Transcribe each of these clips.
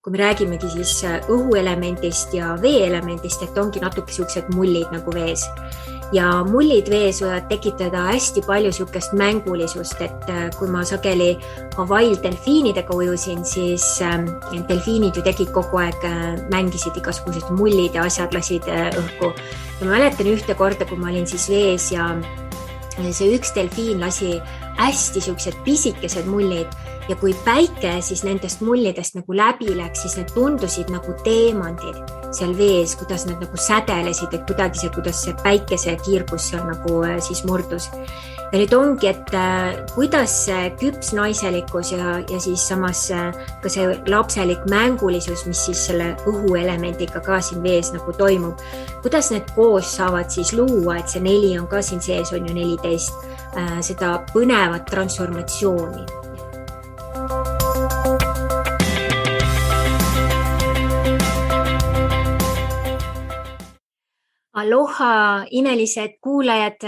kui me räägimegi siis õhuelemendist ja veeelemendist, et ongi natuke siuksed mullid nagu vees. Ja mullid vees võivad tekitada hästi palju siukest mängulisust, et kui ma sageli Hawaii'l delfiinidega ujusin, siis delfiinid ju tegid kogu aeg, mängisid igasugused mullid ja asjad lasid õhku. Ja ma mäletan ühte korda, kui ma olin siis vees ja see üks delfiin lasi hästi siuksed pisikesed mullid ja kui päike siis nendest mullidest nagu läbi läks, siis need tundusid nagu teemandid seal vees, kuidas need nagu sädelesid, et kuidagi see, kuidas see päikese kiirgus seal nagu siis murdus. Ja nüüd ongi, et kuidas see küps naiselikkus ja siis samas ka see lapselik mängulisus, mis siis selle õhuelemendiga ka siin vees nagu toimub, kuidas need koos saavad siis luua, et see 4 on ka siin sees, on ju 14, seda põnevat transformatsiooni. Aloha, imelised kuulajad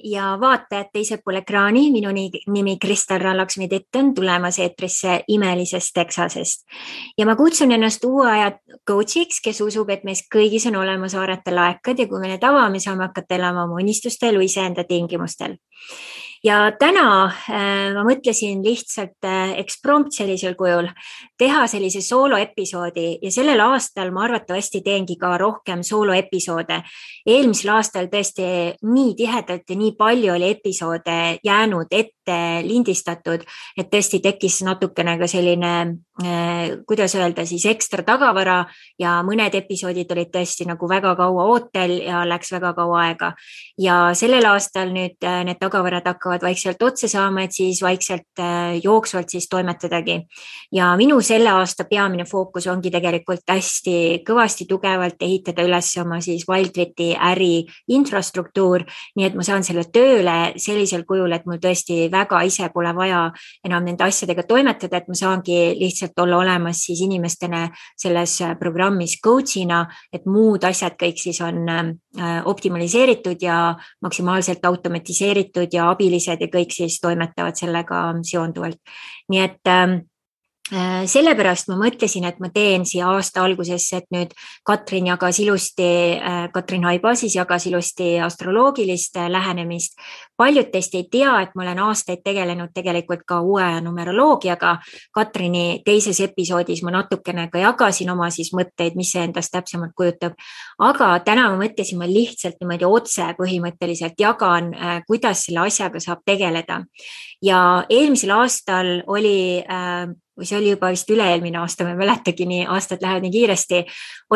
ja vaatajad teisel pool ekraani. Minu nimi Kristel Rallaksmi-Tett on tulemas eetrisse imelisest Texasest. Ja ma kutsun ennast uue aja coachiks, kes usub, et meis kõigis on olemas haarata laekad ja kui me need avame, saame hakata elama oma unistuste elu iseenda tingimustel. Ja täna ma mõtlesin lihtsalt eksprompt sellisel kujul teha sellise sooloepisoodi ja sellel aastal ma arvatavasti teengi ka rohkem sooloepisoode. Eelmisel aastal tõesti nii tihedalt ja nii palju oli episoode jäänud ette lindistatud, et tõesti tekkis natukene ka selline, kuidas öelda, siis ekstra tagavara ja mõned episoodid olid tõesti nagu väga kaua ootel ja läks väga kaua aega. Ja sellel aastal nüüd need tagavarad hakkavad vaikselt otsa saama, et siis vaikselt jooksvalt siis toimetadagi. Ja minu selle aasta peamine fookus ongi tegelikult hästi kõvasti tugevalt ehitada üles oma siis Wildriti äri infrastruktuur, nii et ma saan selle tööle sellisel kujul, et mul tõesti väga ise pole vaja enam nende asjadega toimetada, et ma saangi lihtsalt olla olemas siis inimestena selles programmis coachina, et muud asjad kõik siis on optimaliseeritud ja maksimaalselt automatiseeritud ja abilised ja kõik siis toimetavad sellega seonduvalt. Nii et sellepärast ma mõtlesin, et ma teen siia aasta algusesse, et nüüd Katrin Haiba siis jagas ilusti astroloogilist lähenemist. Paljud teist ei tea, et ma olen aastaid tegelenud tegelikult ka uue numeroloogiaga. Katrini teises episoodis ma natukene ka jagasin oma siis mõtteid, mis see endast täpsemalt kujutab. Aga täna ma mõtlesin, ma lihtsalt niimoodi otse põhimõtteliselt jagan, kuidas selle asjaga saab tegeleda. Ja eelmisel aastal oli või see oli juba vist üle-eelmine aasta, ma ei mäletagi, nii aastad lähevad nii kiiresti,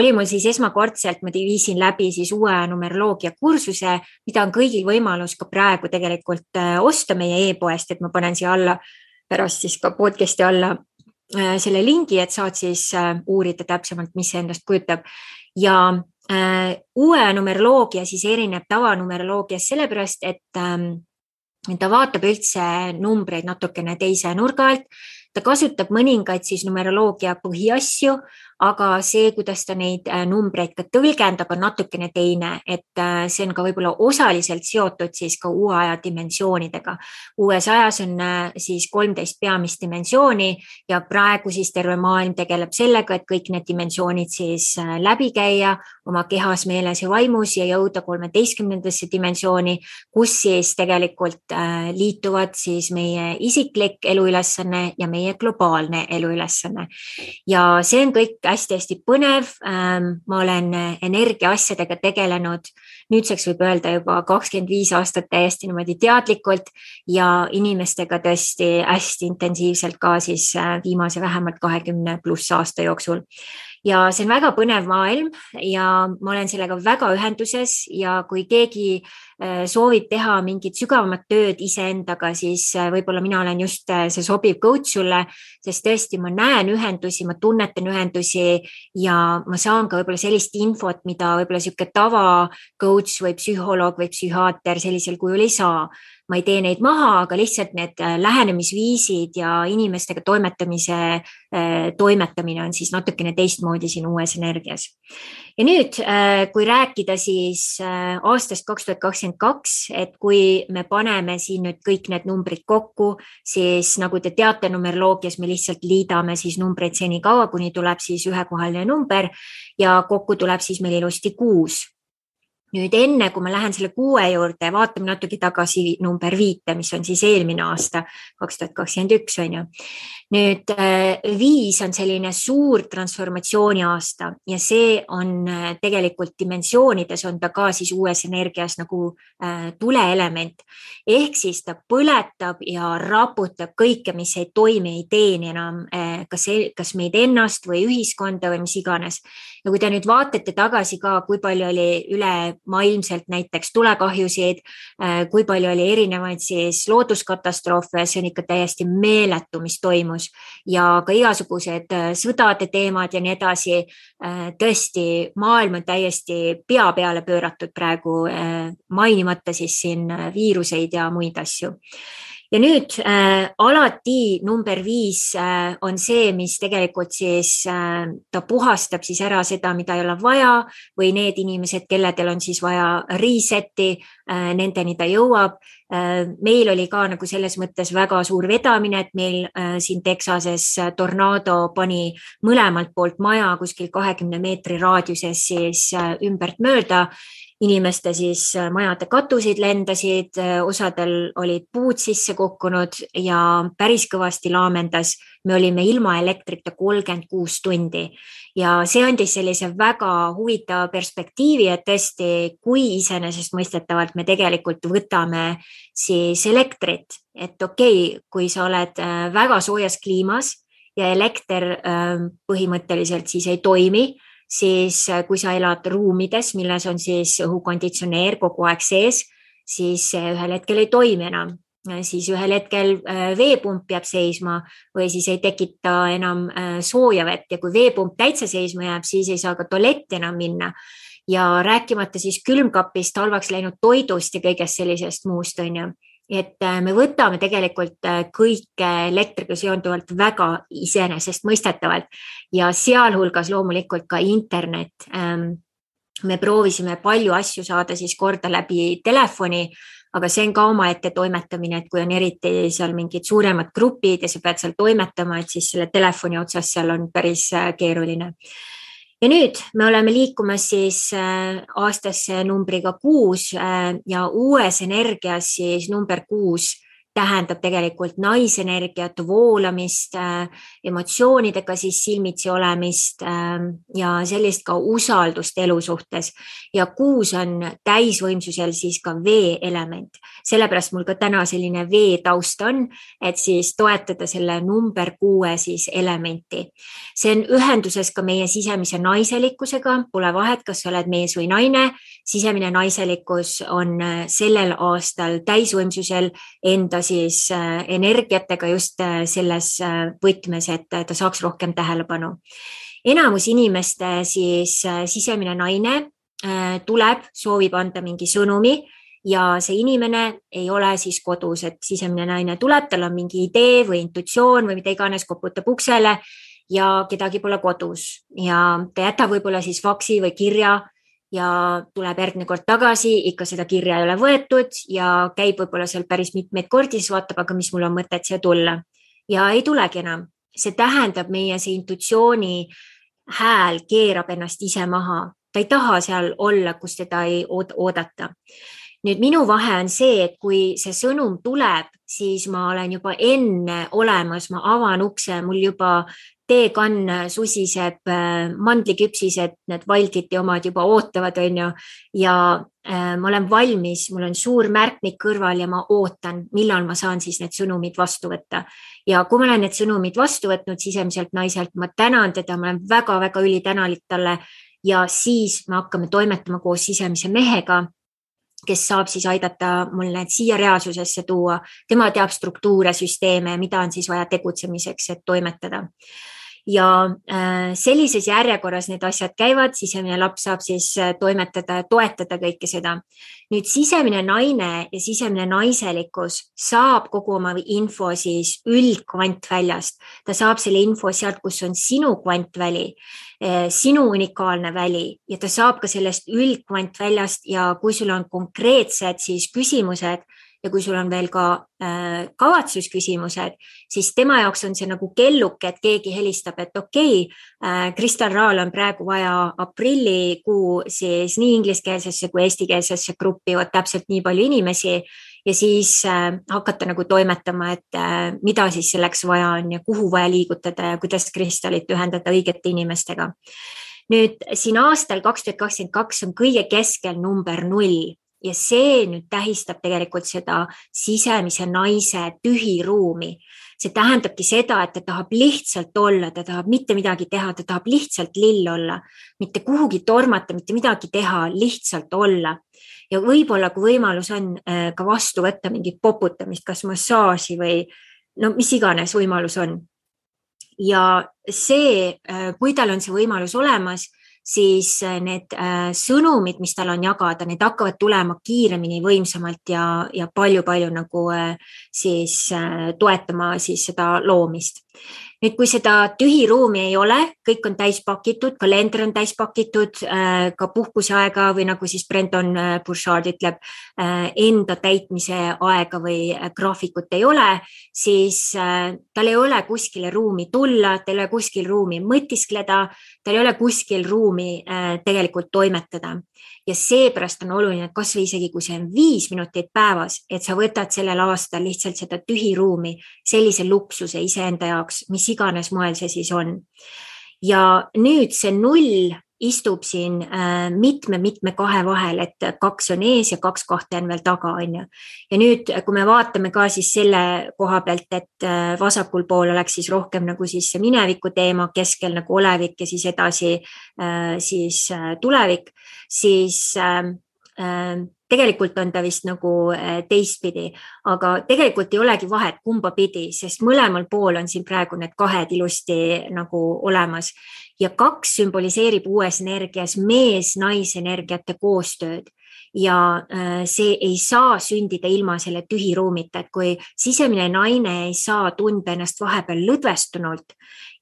oli mul siis esmakordselt, ma viisin läbi siis uue numeroloogia kursuse, mida on kõigil võimalus ka praegu tegelikult osta meie e-poest, et ma panen siia alla pärast siis ka podcasti alla selle lingi, et saad siis uurida täpsemalt, mis see endast kujutab. Ja uue numeroloogia siis erineb tavanumeroloogias sellepärast, et ta vaatab üldse numbreid natukene teise nurga alt. Ta kasutab mõningaid siis numeroloogia põhiasju, aga see, kuidas ta neid numbreid ka tõlgendab, on natukene teine, et see on ka võib-olla osaliselt seotud siis ka uue aja dimensioonidega. Uues ajas on siis 13 peamist dimensiooni ja praegu siis terve maailm tegeleb sellega, et kõik need dimensioonid siis läbi käia oma kehas, meeles ja vaimus ja jõuda 13. dimensiooni, kus siis tegelikult liituvad siis meie isiklik eluülesanne ja meie globaalne eluülesanne. Ja see on kõik hästi-hästi põnev. Ma olen energia asjadega tegelenud, nüüdseks võib öelda juba 25 aastat täiesti niimoodi teadlikult ja inimestega tõesti hästi intensiivselt ka siis viimase vähemalt 20+ aasta jooksul. Ja see on väga põnev maailm ja ma olen sellega väga ühenduses ja kui keegi soovib teha mingit sügavamat tööd iseendaga, siis võib-olla mina olen just see sobiv coach sulle, sest tõesti ma näen ühendusi, ma tunnetan ühendusi ja ma saan ka võib-olla sellist infot, mida võib-olla siuke tava coach või psühholoog või psühhiaater sellisel kujul ei saa. ma ei tee neid maha, aga lihtsalt need lähenemisviisid ja inimestega toimetamine on siis natukene teistmoodi siin uues energias. Ja nüüd, kui rääkida siis aastast 2022, et kui me paneme siin nüüd kõik need numbrid kokku, siis nagu te teate, numeroloogias me lihtsalt liidame siis numbreid senikaua, kuni tuleb siis ühekohaline number ja kokku tuleb siis meil ilusti 6. Nüüd enne, kui ma lähen selle 6 juurde, vaatame natuke tagasi number 5, mis on siis eelmine aasta, 2021 on ju. Nüüd 5 on selline suur transformatsiooni aasta ja see on tegelikult dimensioonides on ta ka siis uues energias nagu tuleelement. Ehk siis ta põletab ja raputab kõike, mis ei toimi, ei teeni enam kas meid ennast või ühiskonda või mis iganes. Ja kui te nüüd vaatate tagasi ka, kui palju oli üle maailmselt näiteks tulekahjusid, kui palju oli erinevaid siis looduskatastroofe, see on ikka täiesti meeletu, mis toimus ja ka igasugused sõdade teemad ja nii edasi. Tõesti, maailm on täiesti pea peale pööratud praegu, mainimata siis siin viiruseid ja muid asju. Ja nüüd alati number 5 on see, mis tegelikult siis ta puhastab siis ära seda, mida ei ole vaja või need inimesed, kelledel on siis vaja reset'i, nendeni ta jõuab. Meil oli ka nagu selles mõttes väga suur vedamine, et meil siin Texases tornaado pani mõlemalt poolt maja kuskil 20 meetri raadiuses siis ümbert mööda. Inimeste siis majade katusid lendasid, osadel olid puud sisse kukkunud ja päris kõvasti laamendas. Me olime ilma elektrita 36 tundi ja see andis sellise väga huvitava perspektiivi, et tõesti, kui iseenesestmõistetavalt me tegelikult võtame siis elektrit, et okei, kui sa oled väga soojas kliimas ja elekter põhimõtteliselt siis ei toimi, siis kui sa elad ruumides, milles on siis õhukonditsioneer kogu aeg sees, siis ühel hetkel ei toimi enam. Siis ühel hetkel veepump jääb seisma või siis ei tekita enam sooja vett ja kui veepump täitsa seisma jääb, siis ei saa ka tualetti enam minna. Ja rääkimata siis külmkapist, halvaks läinud toidust ja kõigest sellisest muust on ju. Et me võtame tegelikult kõike elektriga seonduvalt väga iseenesestmõistetavalt ja sealhulgas loomulikult ka internet. Me proovisime palju asju saada siis korda läbi telefoni, aga see on ka omaette toimetamine, et kui on eriti seal mingid suuremad grupid ja sa pead seal toimetama, et siis selle telefoni otsas seal on päris keeruline. Ja nüüd me oleme liikumas siis aastasse numbriga 6 ja uues energias siis number 6 tähendab tegelikult naisenergiat, voolamist, emotsioonidega siis silmitsi olemist ja sellist ka usaldust elu suhtes. Ja 6 on täisvõimsusel siis ka vee element. Sellepärast mul ka täna selline vee taust on, et siis toetada selle number 6 siis elementi. See on ühenduses ka meie sisemise naiselikkusega, pole vahet, kas sa oled mees või naine. Sisemine naiselikkus on sellel aastal täisvõimsusel enda siis energiatega just selles võtmes, et ta saaks rohkem tähelepanu. Enamus inimeste siis sisemine naine tuleb, soovib anda mingi sõnumi ja see inimene ei ole siis kodus, et sisemine naine tuleb, tal on mingi idee või intuitsioon või mida iganes, koputab uksele ja kedagi pole kodus ja ta jätab võib-olla siis faksi või kirja ja tuleb järgmine kord tagasi, ikka seda kirja ei ole võetud ja käib võib-olla seal päris mitmeid kordi, siis vaatab, aga mis mul on mõtet siia tulla. Ja ei tulegi enam. See tähendab meie see intuitsiooni hääl keerab ennast ise maha. Ta ei taha seal olla, kus teda ei oodata. Nüüd minu vahe on see, et kui see sõnum tuleb, siis ma olen juba enne olemas, ma avan ukse, mul juba teekann susiseb, mandliküpsised, need Valditi omad juba ootavad, on ju, ja ma olen valmis, mul on suur märkmik kõrval ja ma ootan, millal ma saan siis need sõnumid vastu võtta. Ja kui ma olen need sõnumid vastu võtnud sisemiselt naiselt, ma tänan teda, ma olen väga-väga ülitänulik talle ja siis me hakkame toimetama koos sisemise mehega, kes saab siis aidata mul need siia reaalsusesse tuua. Tema teab struktuure, süsteeme, mida on siis vaja tegutsemiseks, et toimetada. ja sellises järjekorras need asjad käivad, sisemine laps saab siis toimetada ja toetada kõike seda. Nüüd sisemine naine ja sisemine naiselikkus saab kogu oma info siis üldkvantväljast. Ta saab selle info sealt, kus on sinu kvantväli, sinu unikaalne väli ja ta saab ka sellest üldkvantväljast ja kui sul on konkreetsed siis küsimused, ja kui sul on veel ka kavatsusküsimused, siis tema jaoks on see nagu kelluke, et keegi helistab, et okei, Kristal Raal on praegu vaja aprillikuu siis nii ingliskeelsesse kui eestikeelsesse gruppi, täpselt nii palju inimesi ja siis hakata nagu toimetama, et mida siis selleks vaja on ja kuhu vaja liigutada ja kuidas kristallit ühendada õigete inimestega. Nüüd siin aastal 2022 on kõige keskel number 0. Ja see nüüd tähistab tegelikult seda sisemise naise tühiruumi. See tähendabki seda, et ta tahab lihtsalt olla, ta tahab mitte midagi teha, ta tahab lihtsalt lill olla, mitte kuhugi tormata, mitte midagi teha, lihtsalt olla. Ja võib-olla, kui võimalus on ka vastu võtta mingit poputamist, kas massaaži või no mis iganes võimalus on. Ja see, kui tal on see võimalus olemas, siis need sõnumid, mis tal on jagada, need hakkavad tulema kiiremini, võimsamalt ja palju nagu siis toetama siis seda loomist. Nüüd, kui seda tühiruumi ei ole, kõik on täis pakitud, kalender on täis pakitud, ka puhkuseaega või nagu siis Brendan Burchard ütleb, enda täitmise aega või graafikut ei ole, siis tal ei ole kuskile ruumi tulla, tal ei ole kuskil ruumi mõtiskleda, tal ei ole kuskil ruumi tegelikult toimetada. Ja seepärast on oluline, et kas või isegi kui see on 5 minutit päevas, et sa võtad sellel aastal lihtsalt seda tühiruumi, sellise luksuse iseenda jaoks, mis iganes moel see siis on. Ja nüüd see 0 istub siin mitme kahe vahel, et 2 on ees ja 2 kahte on veel taga. Ja nüüd, kui me vaatame ka siis selle koha pealt, et vasakul pool oleks siis rohkem nagu siis see mineviku teema, keskel nagu olevik ja siis edasi siis tulevik, siis tegelikult on ta vist nagu teistpidi, aga tegelikult ei olegi vahet kumba pidi, sest mõlemal pool on siin praegu need kahed ilusti nagu olemas. Ja 2 sümboliseerib uues energias mees-naisenergiate koostööd. Ja see ei saa sündida ilma selle tühiruumita, et kui sisemine naine ei saa tunda ennast vahepeal lõdvestunult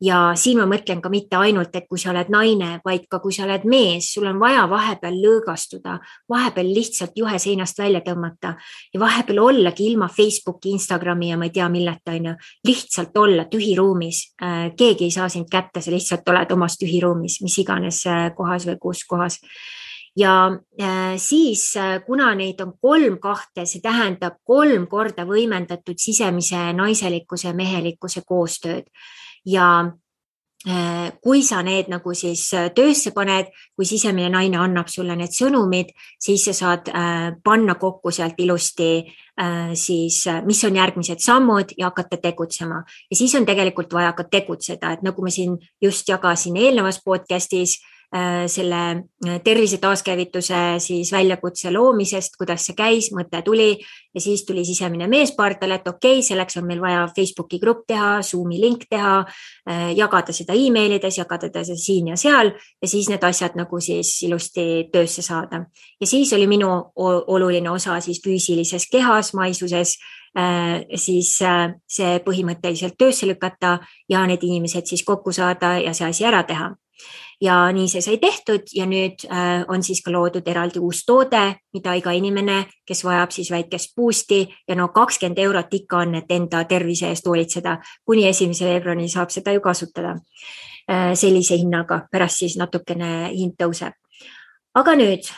ja siin ma mõtlen ka mitte ainult, et kui sa oled naine, vaid ka kui sa oled mees, sul on vaja vahepeal lõõgastuda, vahepeal lihtsalt juhe seinast välja tõmmata ja vahepeal ollagi ilma Facebooki, Instagrami ja ma ei tea milleta, lihtsalt olla tühiruumis. Keegi ei saa sind kätte, sa lihtsalt oled omas tühiruumis, mis iganes kohas või kus kohas. Ja siis, kuna neid on 3 kahte, see tähendab 3 korda võimendatud sisemise naiselikkuse ja mehelikkuse koostööd. Ja kui sa need nagu siis töösse paned, kui sisemine naine annab sulle need sõnumid, siis sa saad panna kokku sealt ilusti siis, mis on järgmised sammud ja hakata tegutsema. Ja siis on tegelikult vaja ka tegutseda, et nagu ma siin just jagasin eelnevas podcastis, selle tervise taaskäivituse siis väljakutse loomisest, kuidas see käis, mõte tuli ja siis tuli sisemine mees pardale, et okei, selleks on meil vaja Facebooki grupp teha, Zoomi link teha, jagada seda emailides, jagada seda siin ja seal ja siis need asjad nagu siis ilusti töösse saada. Ja siis oli minu oluline osa siis füüsilises kehas, maisuses, siis see põhimõtteliselt töösse lükata ja need inimesed siis kokku saada ja see asi ära teha. Ja nii see sai tehtud ja nüüd on siis ka loodud eraldi uus toode, mida iga inimene, kes vajab siis väikest boosti ja 20 eurot ikka on, et enda tervise eest hoolitseda. Kuni 1. veebruari saab seda ju kasutada sellise hinnaga, pärast siis natukene hind tõuseb. Aga nüüd,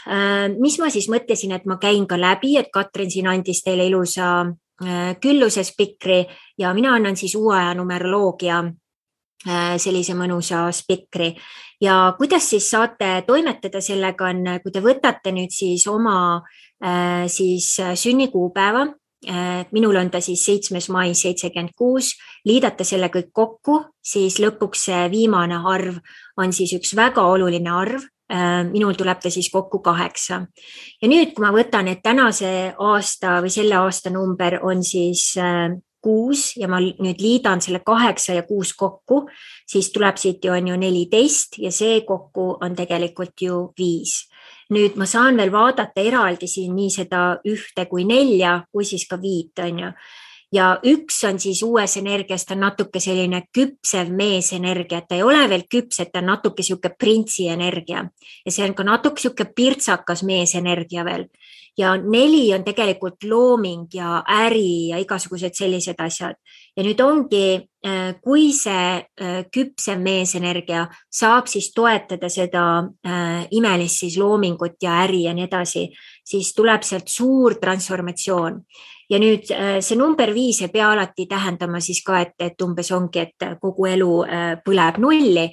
mis ma siis mõtlesin, et ma käin ka läbi, et Katrin siin andis teile ilusa külluse spikri ja mina annan siis uue aja numeroloogia sellise mõnusa spikri. Ja kuidas siis saate toimetada sellega on, kui te võtate nüüd siis oma siis sünnikuupäeva, minul on ta siis 7. mai 76, liidate selle kõik kokku, siis lõpuks see viimane arv on siis üks väga oluline arv, minul tuleb ta siis kokku 8. Ja nüüd, kui ma võtan, et tänase aasta või selle aasta number on siis 6 ja ma nüüd liidan selle 8 ja 6 kokku, siis tuleb siit ju on ju 14 ja see kokku on tegelikult ju 5. Nüüd ma saan veel vaadata eraldi siin nii seda 1 kui 4 kui siis ka 5 on ju. Ja 1 on siis uues energias, ta on natuke selline küpsev meesenergia, ta ei ole veel küps, et ta on natuke siuke printsi energia ja see on ka natuke siuke pirtsakas meesenergia veel. Ja 4 on tegelikult looming ja äri ja igasugused sellised asjad. Ja nüüd ongi, kui see küpsev meesenergia saab siis toetada seda imelist siis loomingut ja äri ja nii edasi, siis tuleb sealt suur transformatsioon. Ja nüüd see number 5 ei pea alati tähendama siis ka, et umbes ongi, et kogu elu põleb nulli,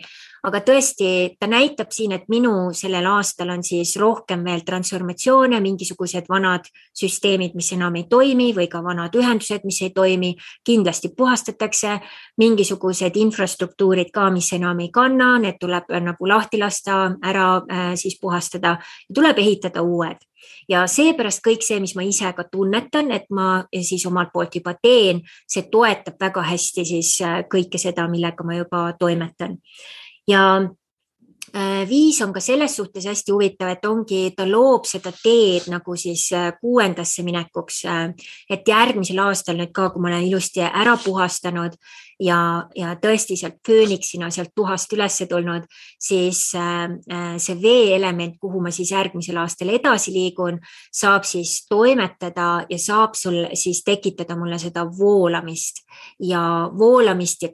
aga tõesti ta näitab siin, et minu sellel aastal on siis rohkem veel transformatsioone, mingisugused vanad süsteemid, mis enam ei toimi või ka vanad ühendused, mis ei toimi, kindlasti puhastatakse, mingisugused infrastruktuurid ka, mis enam ei kanna, need tuleb nagu lahti lasta, ära siis puhastada ja tuleb ehitada uued. Ja seepärast kõik see, mis ma ise ka tunnetan, et ma siis omalt poolt juba teen, see toetab väga hästi siis kõike seda, millega ma juba toimetan. Ja 5 on ka selles suhtes hästi huvitav, et ongi, ta loob seda teed nagu siis 6. minekuks, et järgmisel aastal nüüd ka, kui ma olen ilusti ära puhastanud ja tõesti sealt fööniksina sealt tuhast üles tulnud, siis see vee-element, kuhu ma siis järgmisel aastal edasi liigun, saab siis toimetada ja saab sul siis tekitada mulle seda voolamist ja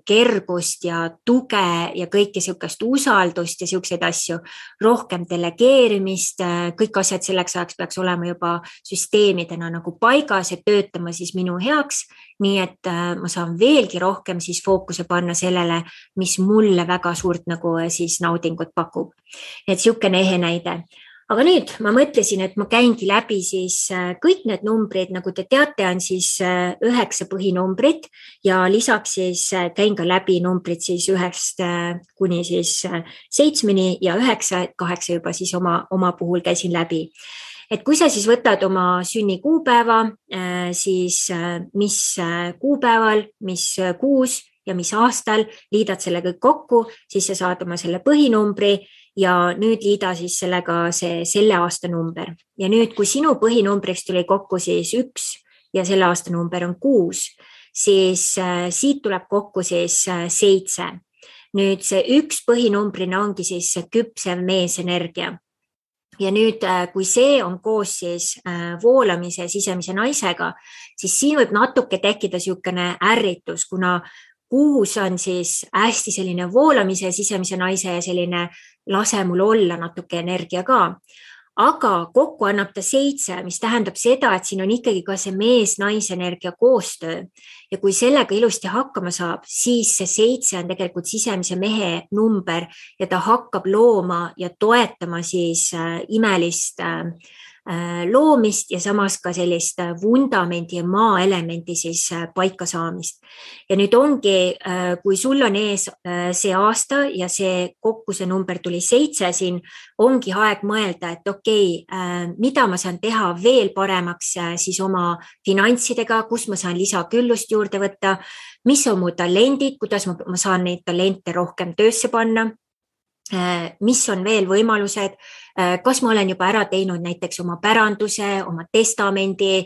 kergust ja tuge ja kõike siukest usaldust ja siukseid asju, rohkem delegeerimist, kõik asjad selleks ajaks peaks olema juba süsteemidena nagu paigas ja töötama siis minu heaks, nii et ma saan veelgi rohkem siis fookuse panna sellele, mis mulle väga suurt nagu siis naudingut pakub. Et siukene ehe näide. Aga nüüd ma mõtlesin, et ma käingi läbi siis kõik need numbrid, nagu te teate, on siis 9 põhinumbrit ja lisaks siis käin ka läbi numbrid siis 1 kuni siis 7 ja 9, 8 juba siis oma puhul käisin läbi. Et kui sa siis võtad oma sünnikuupäeva, siis mis kuupäeval, mis kuus ja mis aastal, liidad selle kõik kokku, siis sa saad oma selle põhinumbri ja nüüd liida siis sellega selle aasta number. Ja nüüd, kui sinu põhinumbriks tuli kokku siis 1 ja selle aasta number on 6, siis siit tuleb kokku siis 7. Nüüd see 1 põhinumbrina ongi siis küpsev meesenergia. Ja nüüd, kui see on koos siis voolamise sisemise naisega, siis siin võib natuke tekkida siukene ärritus, kuna 6 on siis hästi selline voolamise sisemise naise ja selline lase mul olla natuke energia ka. Aga kokku annab ta 7, mis tähendab seda, et siin on ikkagi ka see mees-naisenergia koostöö. Ja kui sellega ilusti hakkama saab, siis see 7 on tegelikult sisemise mehe number ja ta hakkab looma ja toetama siis imelist loomist ja samas ka sellist vundamendi ja maaelementi siis paika saamist. Ja nüüd ongi, kui sul on ees see aasta ja see kokku see number tuli 7 siin, ongi aeg mõelda, et okei, mida ma saan teha veel paremaks siis oma finantsidega, kus ma saan lisaküllust juurde võtta, mis on mu talendid, kuidas ma saan neid talente rohkem töösse panna, mis on veel võimalused, kas ma olen juba ära teinud näiteks oma päranduse, oma testamendi,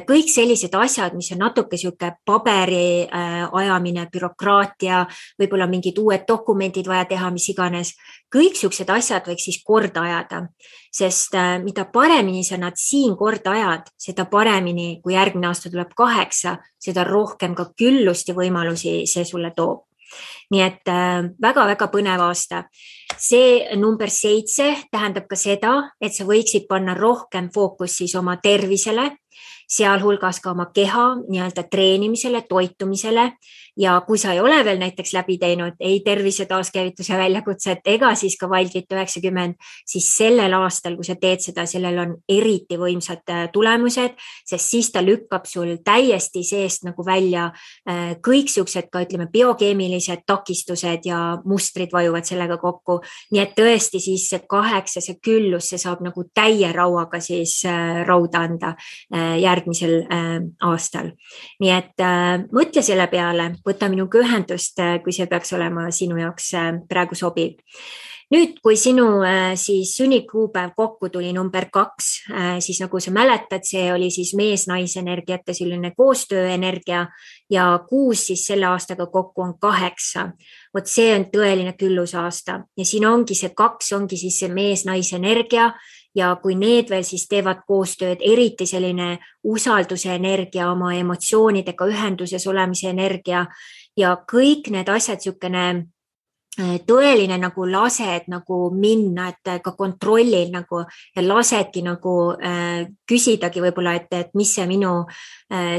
kõik sellised asjad, mis on natuke siuke paberi ajamine, bürokraatia, võib-olla mingid uued dokumendid vaja teha, mis iganes. Kõik siuksed asjad võiks siis korda ajada, sest mida paremini sa nad siin korda ajad, seda paremini, kui järgmine aasta tuleb 8, seda rohkem ka küllust ja võimalusi see sulle toob. Nii et väga-väga põnev aasta. See number 7 tähendab ka seda, et sa võiksid panna rohkem fookus siis oma tervisele, sealhulgas ka oma keha nii-öelda treenimisele, toitumisele ja kui sa ei ole veel näiteks läbi teinud ei tervise taaskäivituse väljakutset ega siis ka Wildfit 90, siis sellel aastal, kui sa teed seda, sellel on eriti võimsad tulemused, sest siis ta lükkab sul täiesti seest nagu välja kõik siuksed ka ütleme biokeemilised takistused ja mustrid vajuvad sellega kokku nii et tõesti siis see 8, see küllus, see saab nagu täie rauaga siis rauda anda järgmisel aastal. Nii et mõtle selle peale, võta minuga ühendust, kui see peaks olema sinu jaoks praegu sobiv. Nüüd, kui sinu siis sünnikuupäev kokku tuli number 2, siis nagu sa mäletad, see oli siis mees-naise energiate selline koostööenergia ja 6 siis selle aastaga kokku on 8. Vot see on tõeline küllusaasta ja siin ongi see 2, ongi siis see mees-naise energia ja kui need veel siis teevad koostööd, eriti selline usalduse energia, oma emotsioonidega ühenduses olemise energia ja kõik need asjad, niisugune tõeline nagu lased nagu minna, et ka kontrollil nagu ja lasedki nagu küsidagi võib-olla, et mis see minu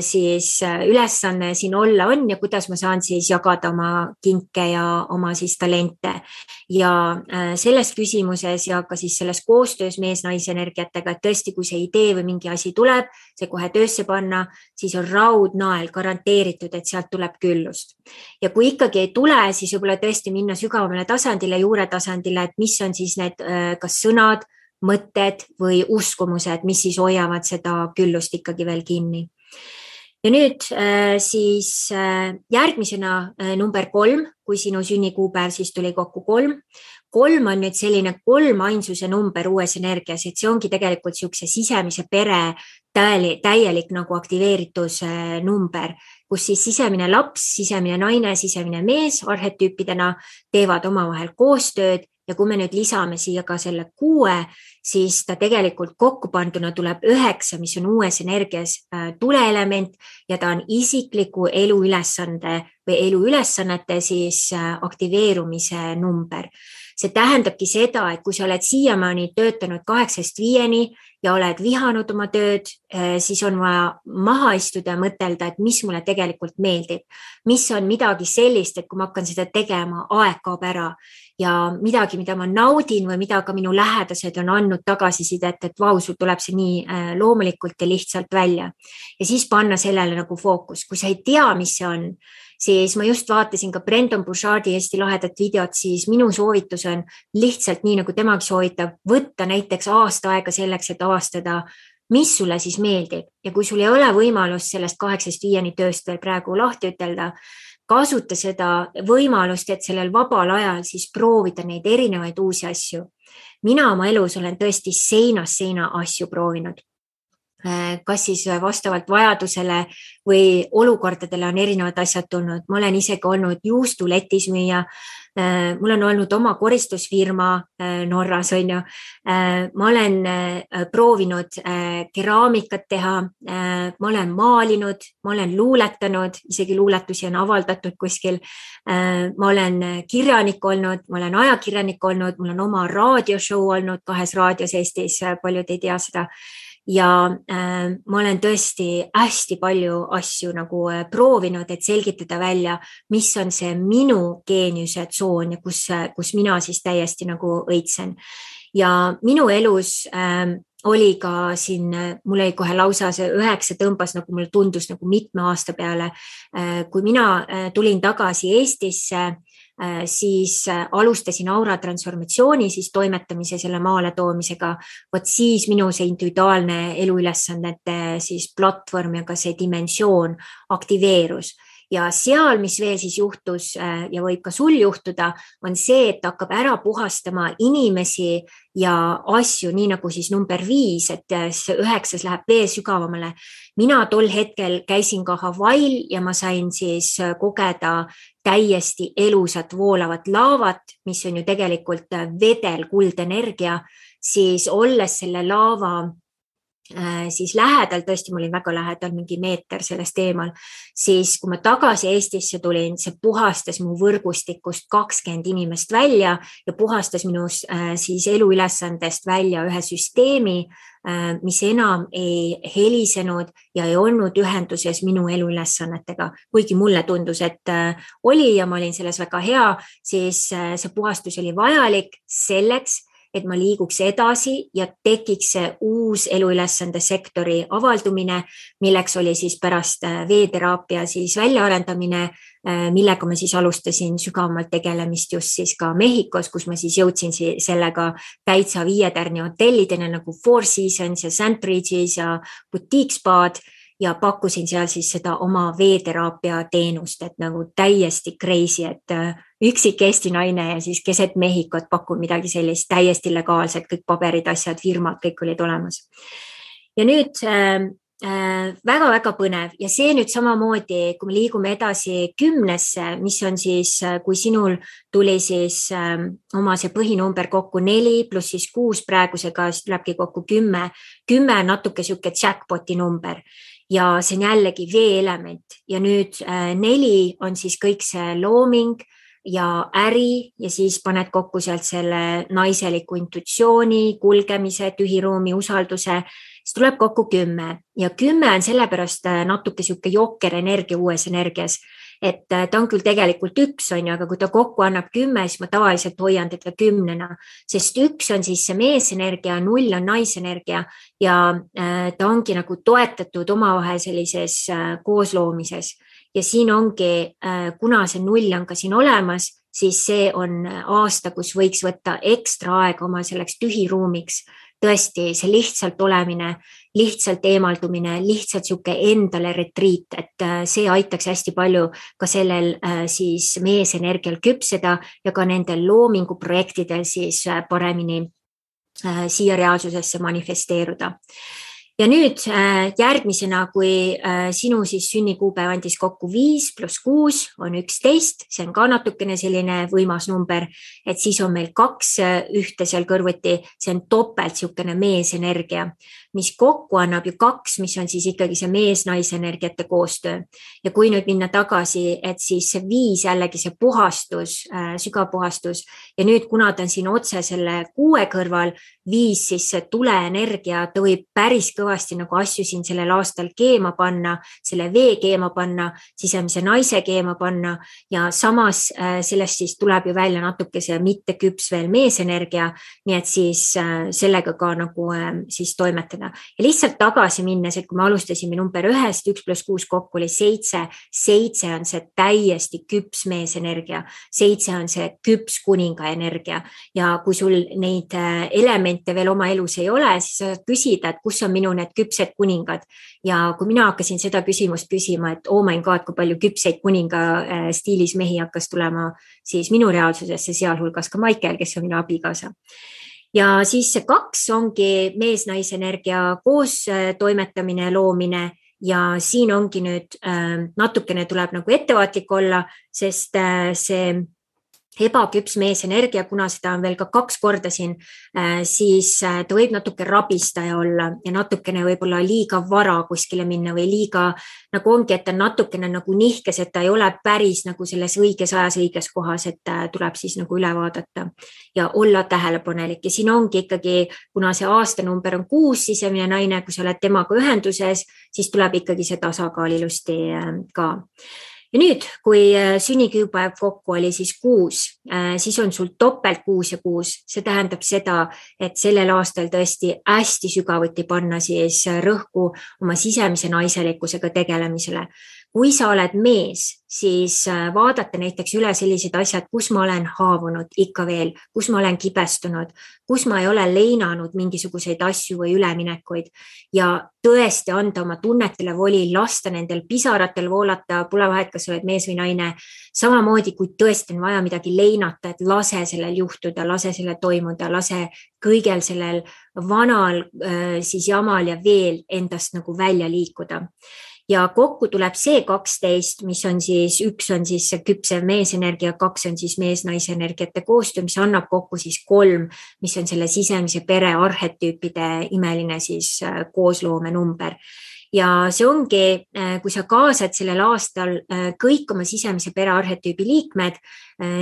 siis ülesanne siin olla on ja kuidas ma saan siis jagada oma kinke ja oma siis talente. Ja selles küsimuses ja ka siis selles koostöös mees-naise energiatega, et tõesti, kui see idee või mingi asi tuleb, see kohe töösse panna, siis on raudnael garanteeritud, et sealt tuleb küllust. Ja kui ikkagi ei tule, siis võib-olla tõesti minna sügavamale tasandile, juure tasandile, et mis on siis need kas sõnad, mõtted või uskumused, mis siis hoiavad seda küllust ikkagi veel kinni. Ja nüüd siis järgmisena number 3, kui sinu sünnikuupäev siis tuli kokku 3. 3 on nüüd selline 3 ainsuse number uues energias, et see ongi tegelikult siukse sisemise pere täielik nagu aktiveeritus number, kus siis sisemine laps, sisemine naine, sisemine mees arhetüüpidena teevad omavahel koostööd ja kui me nüüd lisame siia ka selle 6, siis ta tegelikult kokku panduna tuleb 9, mis on uues energias tuleelement ja ta on isikliku eluülesande või eluülesannete siis aktiveerumise number. See tähendabki seda, et kui sa oled siiamaani töötanud 8-5 ja oled vihanud oma tööd, siis on vaja maha istuda ja mõtelda, et mis mulle tegelikult meeldib. Mis on midagi sellist, et kui ma hakkan seda tegema, aeg kaob ära ja midagi, mida ma naudin või mida ka minu lähedased on andnud tagasisidet, et vau, sul tuleb see nii loomulikult ja lihtsalt välja. Ja siis panna sellele nagu fookus. Kui sa ei tea, mis see on, siis ma just vaatasin ka Brendan Burchardi Eesti lahedat videot, siis minu soovitus on lihtsalt nii, nagu temagi soovitab, võtta näiteks aasta aega selleks, et avastada, mis sulle siis meeldib. Ja kui sul ei ole võimalus sellest 8-5 tööst veel praegu lahti ütelda, kasuta seda võimalust, et sellel vabal ajal siis proovida neid erinevaid uusi asju. Mina oma elus olen tõesti seinast seina asju proovinud. Kas siis vastavalt vajadusele või olukordadele on erinevad asjad tulnud. Ma olen isegi olnud juustuletis müüa, mul on olnud oma koristusfirma Norras, on ju. Ma olen proovinud keraamikat teha, ma olen maalinud, ma olen luuletanud, isegi luuletusi on avaldatud kuskil. Ma olen kirjanik olnud, ma olen ajakirjanik olnud, mul on oma raadioshow olnud 2 raadios Eestis, paljud ei tea seda. Ja ma olen tõesti hästi palju asju nagu proovinud, et selgitada välja, mis on see minu geeniuse tsoon ja kus mina siis täiesti nagu õitsen. Ja minu elus oli ka siin, mul oli kohe lausa see 9 tõmbas, nagu mulle tundus nagu mitme aasta peale. Kui mina tulin tagasi Eestisse, siis alustasin aura transformatsiooni, siis toimetamise selle maale toomisega. Vot siis minu see individuaalne eluülesannete siis platvorm ja ka see dimensioon aktiveerus. Ja seal, mis veel siis juhtus ja võib ka sul juhtuda, on see, et hakkab ära puhastama inimesi ja asju, nii nagu siis number 5, et see 9 läheb veel sügavamale. Mina tol hetkel käisin ka Hawaii'l ja ma sain siis kogeda täiesti elusat voolavat laavat, mis on ju tegelikult vedel kuldenergia, siis olles selle laava siis lähedal, tõesti mul oli väga lähedal, mingi meeter sellest eemal, siis kui ma tagasi Eestisse tulin, see puhastas mu võrgustikust 20 inimest välja ja puhastas minu siis eluülesandest välja ühe süsteemi, mis enam ei helisenud ja ei olnud ühenduses minu eluülesannetega. Kuigi mulle tundus, et oli ja ma olin selles väga hea, siis see puhastus oli vajalik selleks, et ma liiguks edasi ja tekiks see uus eluülesande sektori avaldumine, milleks oli siis pärast veeteraapia siis väljaarendamine millega ma siis alustasin sügavamalt tegelemist just siis ka Mehhikos, kus ma siis jõudsin sellega täitsa 5 tärni hotellidena nagu Four Seasons ja St. Regis ja Boutique Spaad ja pakkusin seal siis seda oma veeteraapia teenust, et nagu täiesti crazy, et üksik Eesti naine ja siis keset Mehhikot pakun midagi sellist täiesti legaalset, kõik paberid, asjad, firmad, kõik olid olemas. Ja nüüd väga-väga põnev ja see nüüd samamoodi, kui me liigume edasi 10-sse, mis on siis, kui sinul tuli siis oma see põhinumber kokku 4 pluss siis 6 praegusega, siis tulebki kokku 10. 10 on natuke siuke jackpoti number ja see on jällegi veeelement ja nüüd 4 on siis kõik see looming ja äri ja siis paned kokku sealt selle naiseliku intuitsiooni, kulgemise, tühiruumi, usalduse, siis tuleb kokku 10 ja 10 on sellepärast natuke siuke jokker energia uues energias, et ta on küll tegelikult 1, aga kui ta kokku annab 10, siis ma tavaliselt hoian teda 10-na, sest 1 on siis see meesenergia, 0 on naisenergia ja ta ongi nagu toetatud omavahel sellises koosloomises. Ja siin ongi, kuna see 0 on ka siin olemas, siis see on aasta, kus võiks võtta ekstra aega oma selleks tühiruumiks. Tõesti, see lihtsalt olemine, lihtsalt eemaldumine, lihtsalt siuke endale retriit, et see aitaks hästi palju ka sellel siis meesenergial küpseda ja ka nendel loominguprojektidel siis paremini siia reaalsusesse manifesteeruda. Ja nüüd järgmisena, kui sinu siis sünnikuupäev andis kokku 5 pluss 6 on 11, see on ka natukene selline võimas number, et siis on meil 2 ühte seal kõrvuti, see on topelt siukene meesenergia, mis kokku annab ju 2, mis on siis ikkagi see mees-naisenergiate koostöö. Ja kui nüüd minna tagasi, et siis see 5 jällegi see puhastus, sügav puhastus ja nüüd kuna ta on siin otse selle 6 kõrval, 5 siis see tuleenergia, ta võib päris kõvasti nagu asju siin sellel aastal keema panna, selle vee keema panna, sisemise naise keema panna ja samas sellest siis tuleb ju välja natuke see mitte küps veel meesenergia, nii et siis sellega ka nagu siis toimetada. Ja lihtsalt tagasi minnes, et kui me alustasime number 1, 1 pluss 6 kokku oli 7, 7 on see täiesti küps meesenergia, 7 on see küps kuninga energia ja kui sul neid elemente veel oma elus ei ole, siis sa küsida, et kus on minu need küpsed kuningad ja kui mina hakkasin seda küsimust küsima, et oh my god, kui palju küpseid kuninga stiilis mehi hakkas tulema siis minu reaalsusesse, sealhulgas ka Maikel, kes on minu abikaasa. Ja siis see 2 ongi mees-naisenergia koos toimetamine, loomine ja siin ongi nüüd natukene tuleb nagu ettevaatlik olla, sest see ebaküps meesenergia, kuna seda on veel ka 2 korda siin, siis ta võib natuke rabistaja olla ja natukene võib-olla liiga vara kuskile minna või liiga nagu ongi, et ta natukene nagu nihkes, et ta ei ole päris nagu selles õiges ajas, õiges kohas, et tuleb siis nagu üle vaadata ja olla tähelepanelik. Ja siin ongi ikkagi, kuna see aastanumber on 6 sisemine naine, kui sa oled temaga ühenduses, siis tuleb ikkagi see tasakaal ilusti ka. Ja nüüd, kui sünnikuupäev kokku oli siis 6, siis on sul topelt 6 ja 6. See tähendab seda, et sellel aastal tõesti hästi sügavuti panna siis rõhku oma sisemise naiselikkusega tegelemisele. Kui sa oled mees, siis vaadata näiteks üle sellised asjad, kus ma olen haavunud ikka veel, kus ma olen kibestunud, kus ma ei ole leinanud mingisuguseid asju või üleminekuid ja tõesti anda oma tunnetele voli, lasta nendel pisaratel voolata, pole vahet, kas oled mees või naine. Samamoodi, kui tõesti on vaja midagi leinata, et lase sellel juhtuda, lase sellel toimuda, lase kõigel sellel vanal siis jamal ja veel endast nagu välja liikuda. Ja kokku tuleb see 12, mis on siis, 1 on siis küpsev meesenergia, 2 on siis mees-naisenergiate koostöö, mis annab kokku siis 3, mis on selle sisemise pere arhetüüpide imeline siis koosloome number. Ja see ongi, kui sa kaasad sellel aastal kõik oma sisemise pere arhetüübi liikmed,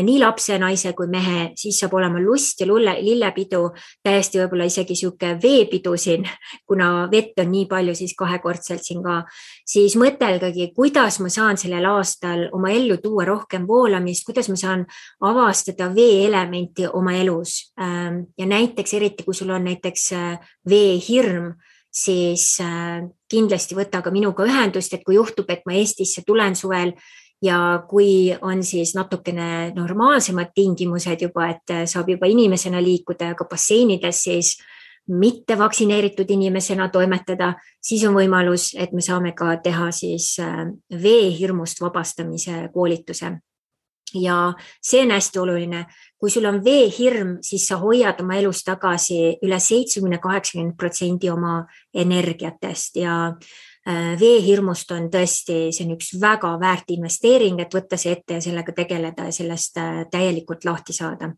nii lapse, naise kui mehe, siis saab olema lust ja lillepidu, täiesti võib-olla isegi siuke veepidu siin, kuna vett on nii palju siis 2-kordselt siin ka, siis mõtelgagi, kuidas ma saan sellel aastal oma ellu tuua rohkem voolamist, kuidas ma saan avastada veeelementi oma elus ja näiteks eriti, kui sul on näiteks veehirm, siis kindlasti võta ka minuga ühendust, et kui juhtub, et ma Eestisse tulen suvel ja kui on siis natukene normaalsemad tingimused juba, et saab juba inimesena liikuda ja ka basseinides siis mitte vaktsineeritud inimesena toimetada, siis on võimalus, et me saame ka teha siis veehirmust vabastamise koolituse. Ja see on hästi oluline. Kui sul on veehirm, siis sa hoiad oma elus tagasi üle 70-80% oma energiatest ja veehirmust on tõesti, see on üks väga väärt investeering, et võtta see ette ja sellega tegeleda ja sellest täielikult lahti saada.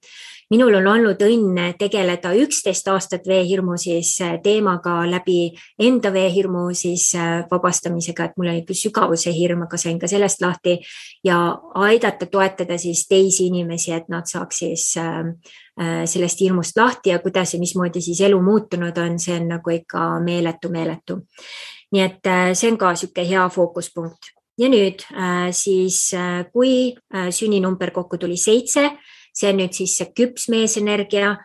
Minul on olnud õnn tegeleda 11 aastat veehirmu siis teemaga läbi enda veehirmu siis vabastamisega, et mul oli küll sügavuse hirm, aga sain ka sellest lahti ja aidata toetada siis teisi inimesi, et nad saaks siis sellest hirmust lahti ja kuidas ja mismoodi siis elu muutunud on, see on nagu ikka meeletu. Nii et see on ka siuke hea fookuspunkt. Ja nüüd siis, kui sünninumber kokku tuli 7, see on nüüd siis see küps meesenergia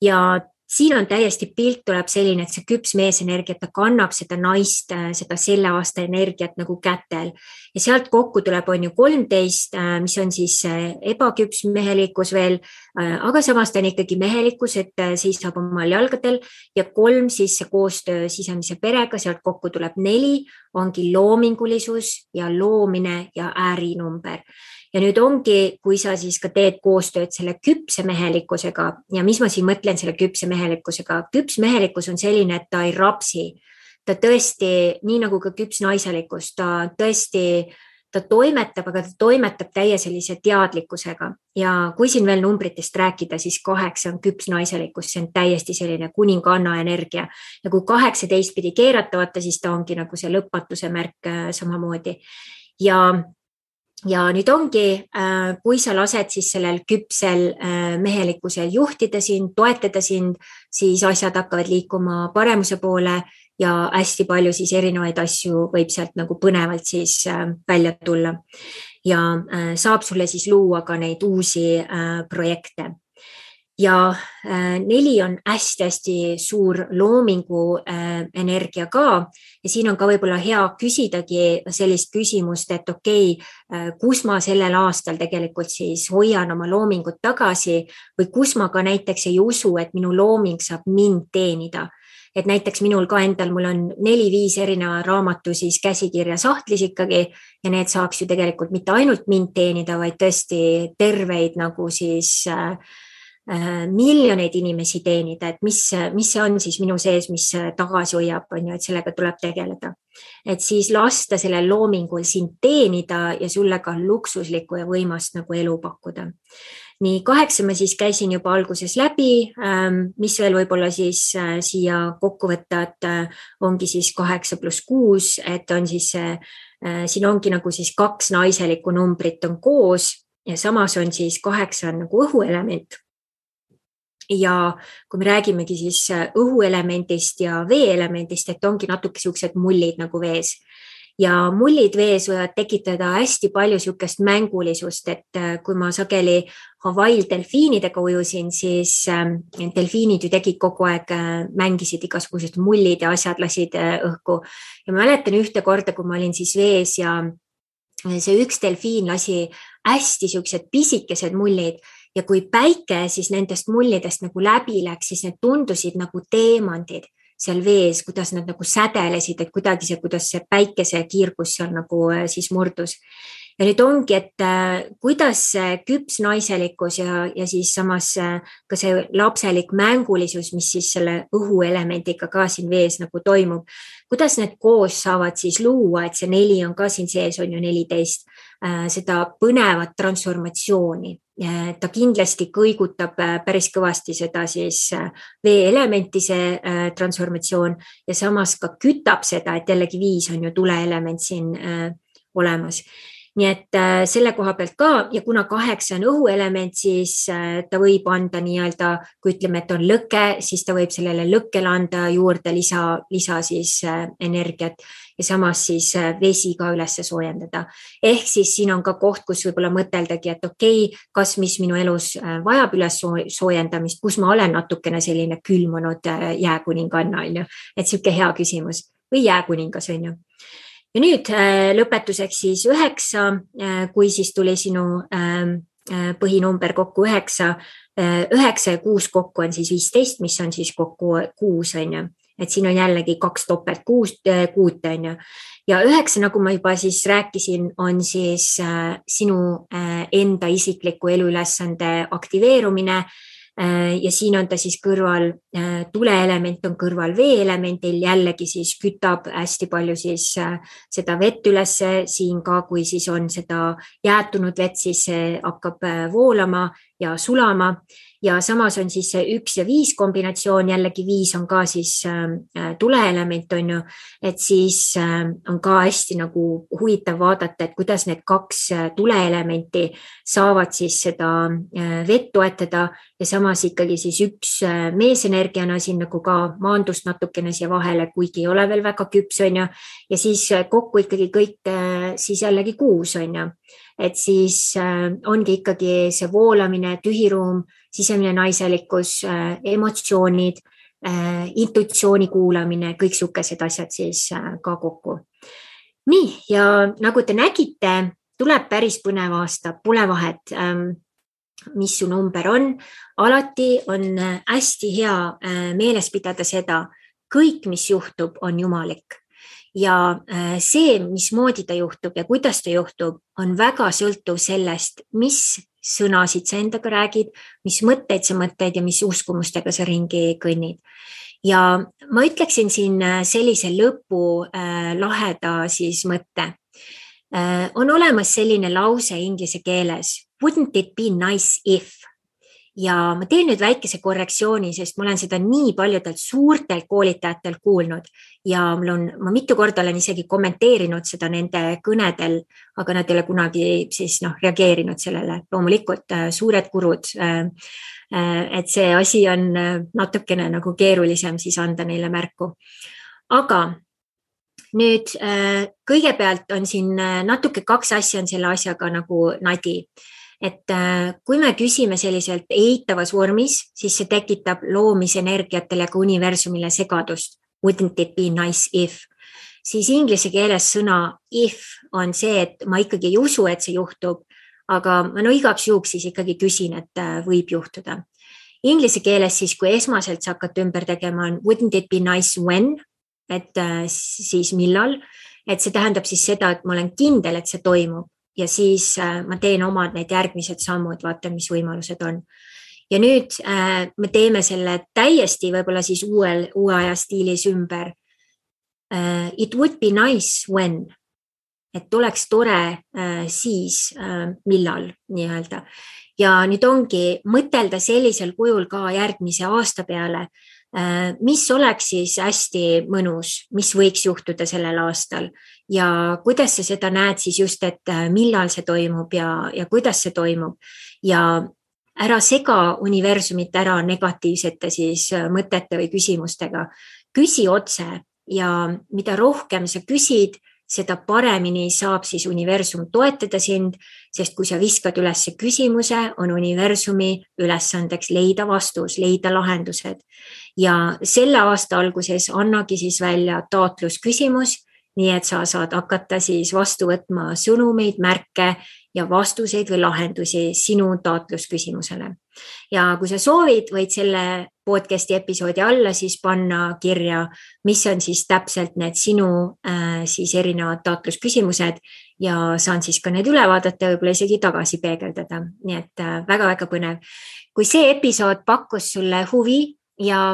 ja siin on täiesti pilt tuleb selline, et see küps meesenergia, ta kannab seda naist, seda selle aasta energiat nagu kätel ja sealt kokku tuleb on ju 13, mis on siis ebaküps mehelikkus veel, aga samas ta on ikkagi mehelikkus, et seisab omal jalgadel ja 3 siis see koostöö sisemise perega, sealt kokku tuleb 4, ongi loomingulisus ja loomine ja äärinumber. Ja nüüd ongi, kui sa siis ka teed koostööd selle küpse mehelikkusega ja mis ma siin mõtlen selle küpse mehelikkusega, küps mehelikkus on selline, et ta ei rapsi, ta tõesti, nii nagu ka küps naiselikkus, ta tõesti, ta toimetab, aga ta toimetab täie sellise teadlikkusega ja kui siin veel numbritest rääkida, siis 8 on küps naiselikkus, see on täiesti selline kuninganna energia ja kui 18 pidi keeratavata, siis ta ongi nagu see lõpmatuse märk samamoodi ja nüüd ongi, kui sa lased siis sellel küpsel mehelikkusel juhtida sind, toetada sind, siis asjad hakkavad liikuma paremuse poole ja hästi palju siis erinevaid asju võib sealt nagu põnevalt siis välja tulla. Ja saab sulle siis luua ka neid uusi projekte. Ja 4 on hästi suur loomingu energia ka ja siin on ka võib-olla hea küsidagi sellist küsimust, et okei, kus ma sellel aastal tegelikult siis hoian oma loomingut tagasi või kus ma ka näiteks ei usu, et minu looming saab mind teenida. Et näiteks minul ka endal, mul on 4-5 erineva raamatu siis käsikirja sahtlis ikkagi ja need saaks ju tegelikult mitte ainult mind teenida, vaid tõesti terveid nagu siis miljoneid inimesi teenida, et mis see on siis minu sees, mis tagasi hoiab, on ju, et sellega tuleb tegeleda. Et siis lasta sellel loomingul sind teenida ja sulle ka luksuslikku ja võimast nagu elu pakkuda. Nii 8 ma siis käisin juba alguses läbi, mis veel võib-olla siis siia kokku võtta, et ongi siis 8 + 6, et on siis siin ongi nagu siis 2 naiselikku numbrit on koos ja samas on siis 8 on nagu õhuelement. Ja kui me räägimegi siis õhuelemendist ja veeelemendist, et ongi natuke siuksed mullid nagu vees. Ja mullid vees võivad tekitada hästi palju siukest mängulisust, et kui ma sageli Hawaii'l delfiinidega ujusin, siis delfiinid ju tegid kogu aeg, mängisid igasugused mullid ja asjad lasid õhku. Ja ma mäletan ühte korda, kui ma olin siis vees ja see üks delfiin lasi hästi siuksed pisikesed mullid ja kui päike siis nendest mullidest nagu läbi läks, siis need tundusid nagu teemandid seal vees, kuidas nad nagu sädelesid, et kuidagi see, kuidas see päikese kiirgus seal nagu siis murdus. Ja nüüd ongi, et kuidas see küps naiselikkus ja siis samas ka see lapselik mängulisus, mis siis selle õhuelemendiga ka siin vees nagu toimub, kuidas need koos saavad siis luua, et see 4 on ka siin sees, on ju 14, seda põnevat transformatsiooni. Ta kindlasti kõigutab päris kõvasti seda siis veeelementi see transformatsioon ja samas ka kütab seda, et jällegi 5 on ju tuleelement siin olemas. Nii et selle koha pealt ka ja kuna 8 on õhuelement, siis ta võib anda nii-öelda, kui ütleme, et on lõke, siis ta võib sellele lõkkele anda juurde lisa siis energiat ja samas siis vesi ka üles soojendada. Ehk siis siin on ka koht, kus võib-olla mõteldagi, et okei, kas mis minu elus vajab üles soojendamist, kus ma olen natukene selline külmunud jääkuninganna, on ju, et siuke hea küsimus või jääkuningas, on ju. ja nüüd lõpetuseks siis 9, kui siis tuli sinu põhinumber kokku 9, 9 ja 6 kokku on siis 15, mis on siis kokku 6, on ju. Et siin on jällegi 2 topelt 6, on ju. Ja 9, nagu ma juba siis rääkisin, on siis sinu enda isikliku eluülesande aktiveerumine. Ja siin on ta siis kõrval, tuleelement on kõrval veeelemendil, jällegi siis kütab hästi palju siis seda vett ülesse, siin ka kui siis on seda jäätunud vett, siis hakkab voolama ja sulama. Ja samas on siis see 1 ja 5 kombinatsioon, jällegi 5 on ka siis tuleelement, on ju, et siis on ka hästi nagu huvitav vaadata, et kuidas need 2 tuleelementi saavad siis seda vett toetada ja samas ikkagi siis 1 meesenergiana siin nagu ka maandust natukene siia vahele, kuigi ei ole veel väga küps, on ju, ja siis kokku ikkagi kõik siis jällegi 6, on ju. Et siis ongi ikkagi see voolamine, tühiruum, sisemine naiselikkus, emotsioonid, intuitsiooni kuulamine, kõik sukesed asjad siis ka kokku. Nii, ja nagu te nägite, tuleb päris põnev aasta, pole vahet, mis su number on. Alati on hästi hea meeles pidada seda, kõik, mis juhtub, on jumalik. Ja see, mismoodi ta juhtub ja kuidas ta juhtub, on väga sõltuv sellest, mis sõnasid sa endaga räägid, mis mõtteid sa mõtteid ja mis uskumustega sa ringi kõnnid. Ja ma ütleksin siin sellise lõpu laheda siis mõtte. On olemas selline lause inglise keeles, wouldn't it be nice if? Ja ma teen nüüd väikese korrektsiooni, sest ma olen seda nii paljudelt suurtelt koolitajatel kuulnud ja ma mitu korda olen isegi kommenteerinud seda nende kõnedel, aga nad ei ole kunagi siis reageerinud sellele. Loomulikult suured kurud, et see asi on natukene nagu keerulisem siis anda neile märku. Aga nüüd kõigepealt on siin natuke 2 asja on selle asjaga nagu nadi. Et kui me küsime selliselt eitavas vormis, siis see tekitab loomisenergiatele ka universumile segadust. Wouldn't it be nice if? Siis inglise keeles sõna if on see, et ma ikkagi ei usu, et see juhtub, aga ma igaks juhuks siis ikkagi küsin, et võib juhtuda. Inglise keeles siis, kui esmaselt sa hakkad ümber tegema, on wouldn't it be nice when? Et siis millal? Et see tähendab siis seda, et ma olen kindel, et see toimub. Ja siis ma teen omad need järgmised sammud, vaatan, mis võimalused on. Ja nüüd me teeme selle täiesti võib-olla siis uue aja stiilis ümber. It would be nice when. Et oleks tore siis millal nii-öelda. Ja nüüd ongi mõtelda sellisel kujul ka järgmise aasta peale, mis oleks siis hästi mõnus, mis võiks juhtuda sellel aastal ja kuidas sa seda näed siis just, et millal see toimub ja kuidas see toimub ja ära sega universumit ära negatiivsete siis mõtete või küsimustega. Küsi otse ja mida rohkem sa küsid, seda paremini saab siis universum toetada sind, sest kui sa viskad üles küsimuse, on universumi ülesandeks leida vastus, leida lahendused. Ja selle aasta alguses annagi siis välja taotlusküsimus, nii et sa saad hakata siis vastu võtma sõnumeid, märke ja vastuseid või lahendusi sinu taotlusküsimusele. Ja kui sa soovid, võid selle podcasti episoodi alla siis panna kirja, mis on siis täpselt need sinu siis erinevad taotlusküsimused ja saan siis ka need üle vaadata, võib-olla isegi tagasi peegeldada. Nii et väga-väga põnev. Kui see episood pakkus sulle huvi ja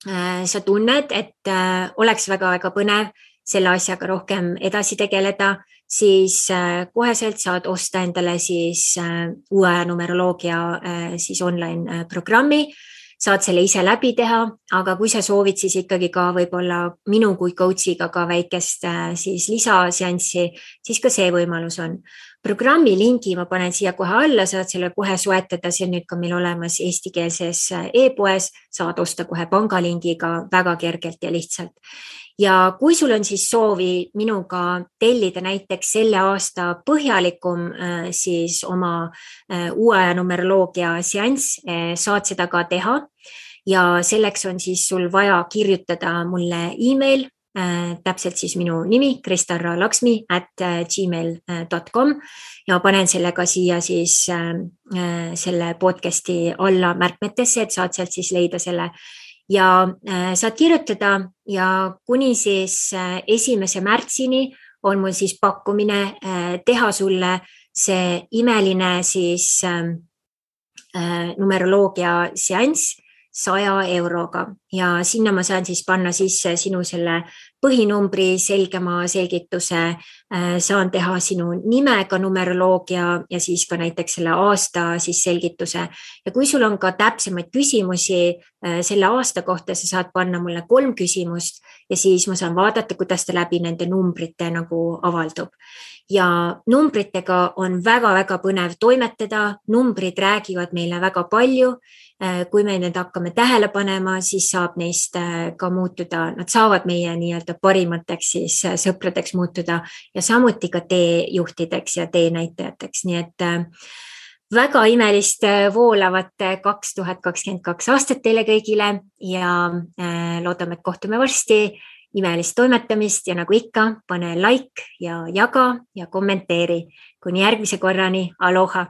sa tunned, et oleks väga-väga põnev selle asjaga rohkem edasi tegeleda, siis koheselt saad osta endale siis uue numeroloogia siis online programmi, saad selle ise läbi teha, aga kui sa soovid siis ikkagi ka võib-olla minu kui coachiga ka väikest siis lisaseanssi, siis ka see võimalus on. Programmi lingi ma panen siia kohe alla, saad selle kohe soetada, see on nüüd ka meil olemas eestikeelses e-poes, saad osta kohe pangalingiga väga kergelt ja lihtsalt. Ja kui sul on siis soovi minuga tellida näiteks selle aasta põhjalikum siis oma uue numeroloogia seanss, saad seda ka teha ja selleks on siis sul vaja kirjutada mulle email täpselt siis minu nimi kristaralaksmi@gmail.com ja panen selle ka siia siis selle podcasti alla märkmetesse, et saad sealt siis leida selle ja saad kirjutada ja kuni siis 1. märtsini on mul siis pakkumine teha sulle see imeline siis numeroloogia seanss 100 euroga ja sinna ma saan siis panna sisse sinu selle põhinumbri, selgema selgituse, saan teha sinu nimega numeroloogia ja siis ka näiteks selle aasta siis selgituse. Ja kui sul on ka täpsemaid küsimusi selle aasta kohta, sa saad panna mulle 3 küsimust ja siis ma saan vaadata, kuidas ta läbi nende numbrite nagu avaldub. Ja numbritega on väga-väga põnev toimetada, numbrid räägivad meile väga palju. Kui me need hakkame tähele panema, siis saab neist ka muutuda, nad saavad meie nii-öelda parimateks siis sõpradeks muutuda ja samuti ka teejuhtideks ja teenäitajateks. Nii et väga imelist voolavat 2022 aastat teile kõigile ja loodame, et kohtume varsti. Imelist toimetamist ja nagu ikka, pane like ja jaga ja kommenteeri. Kuni järgmise korrani, aloha!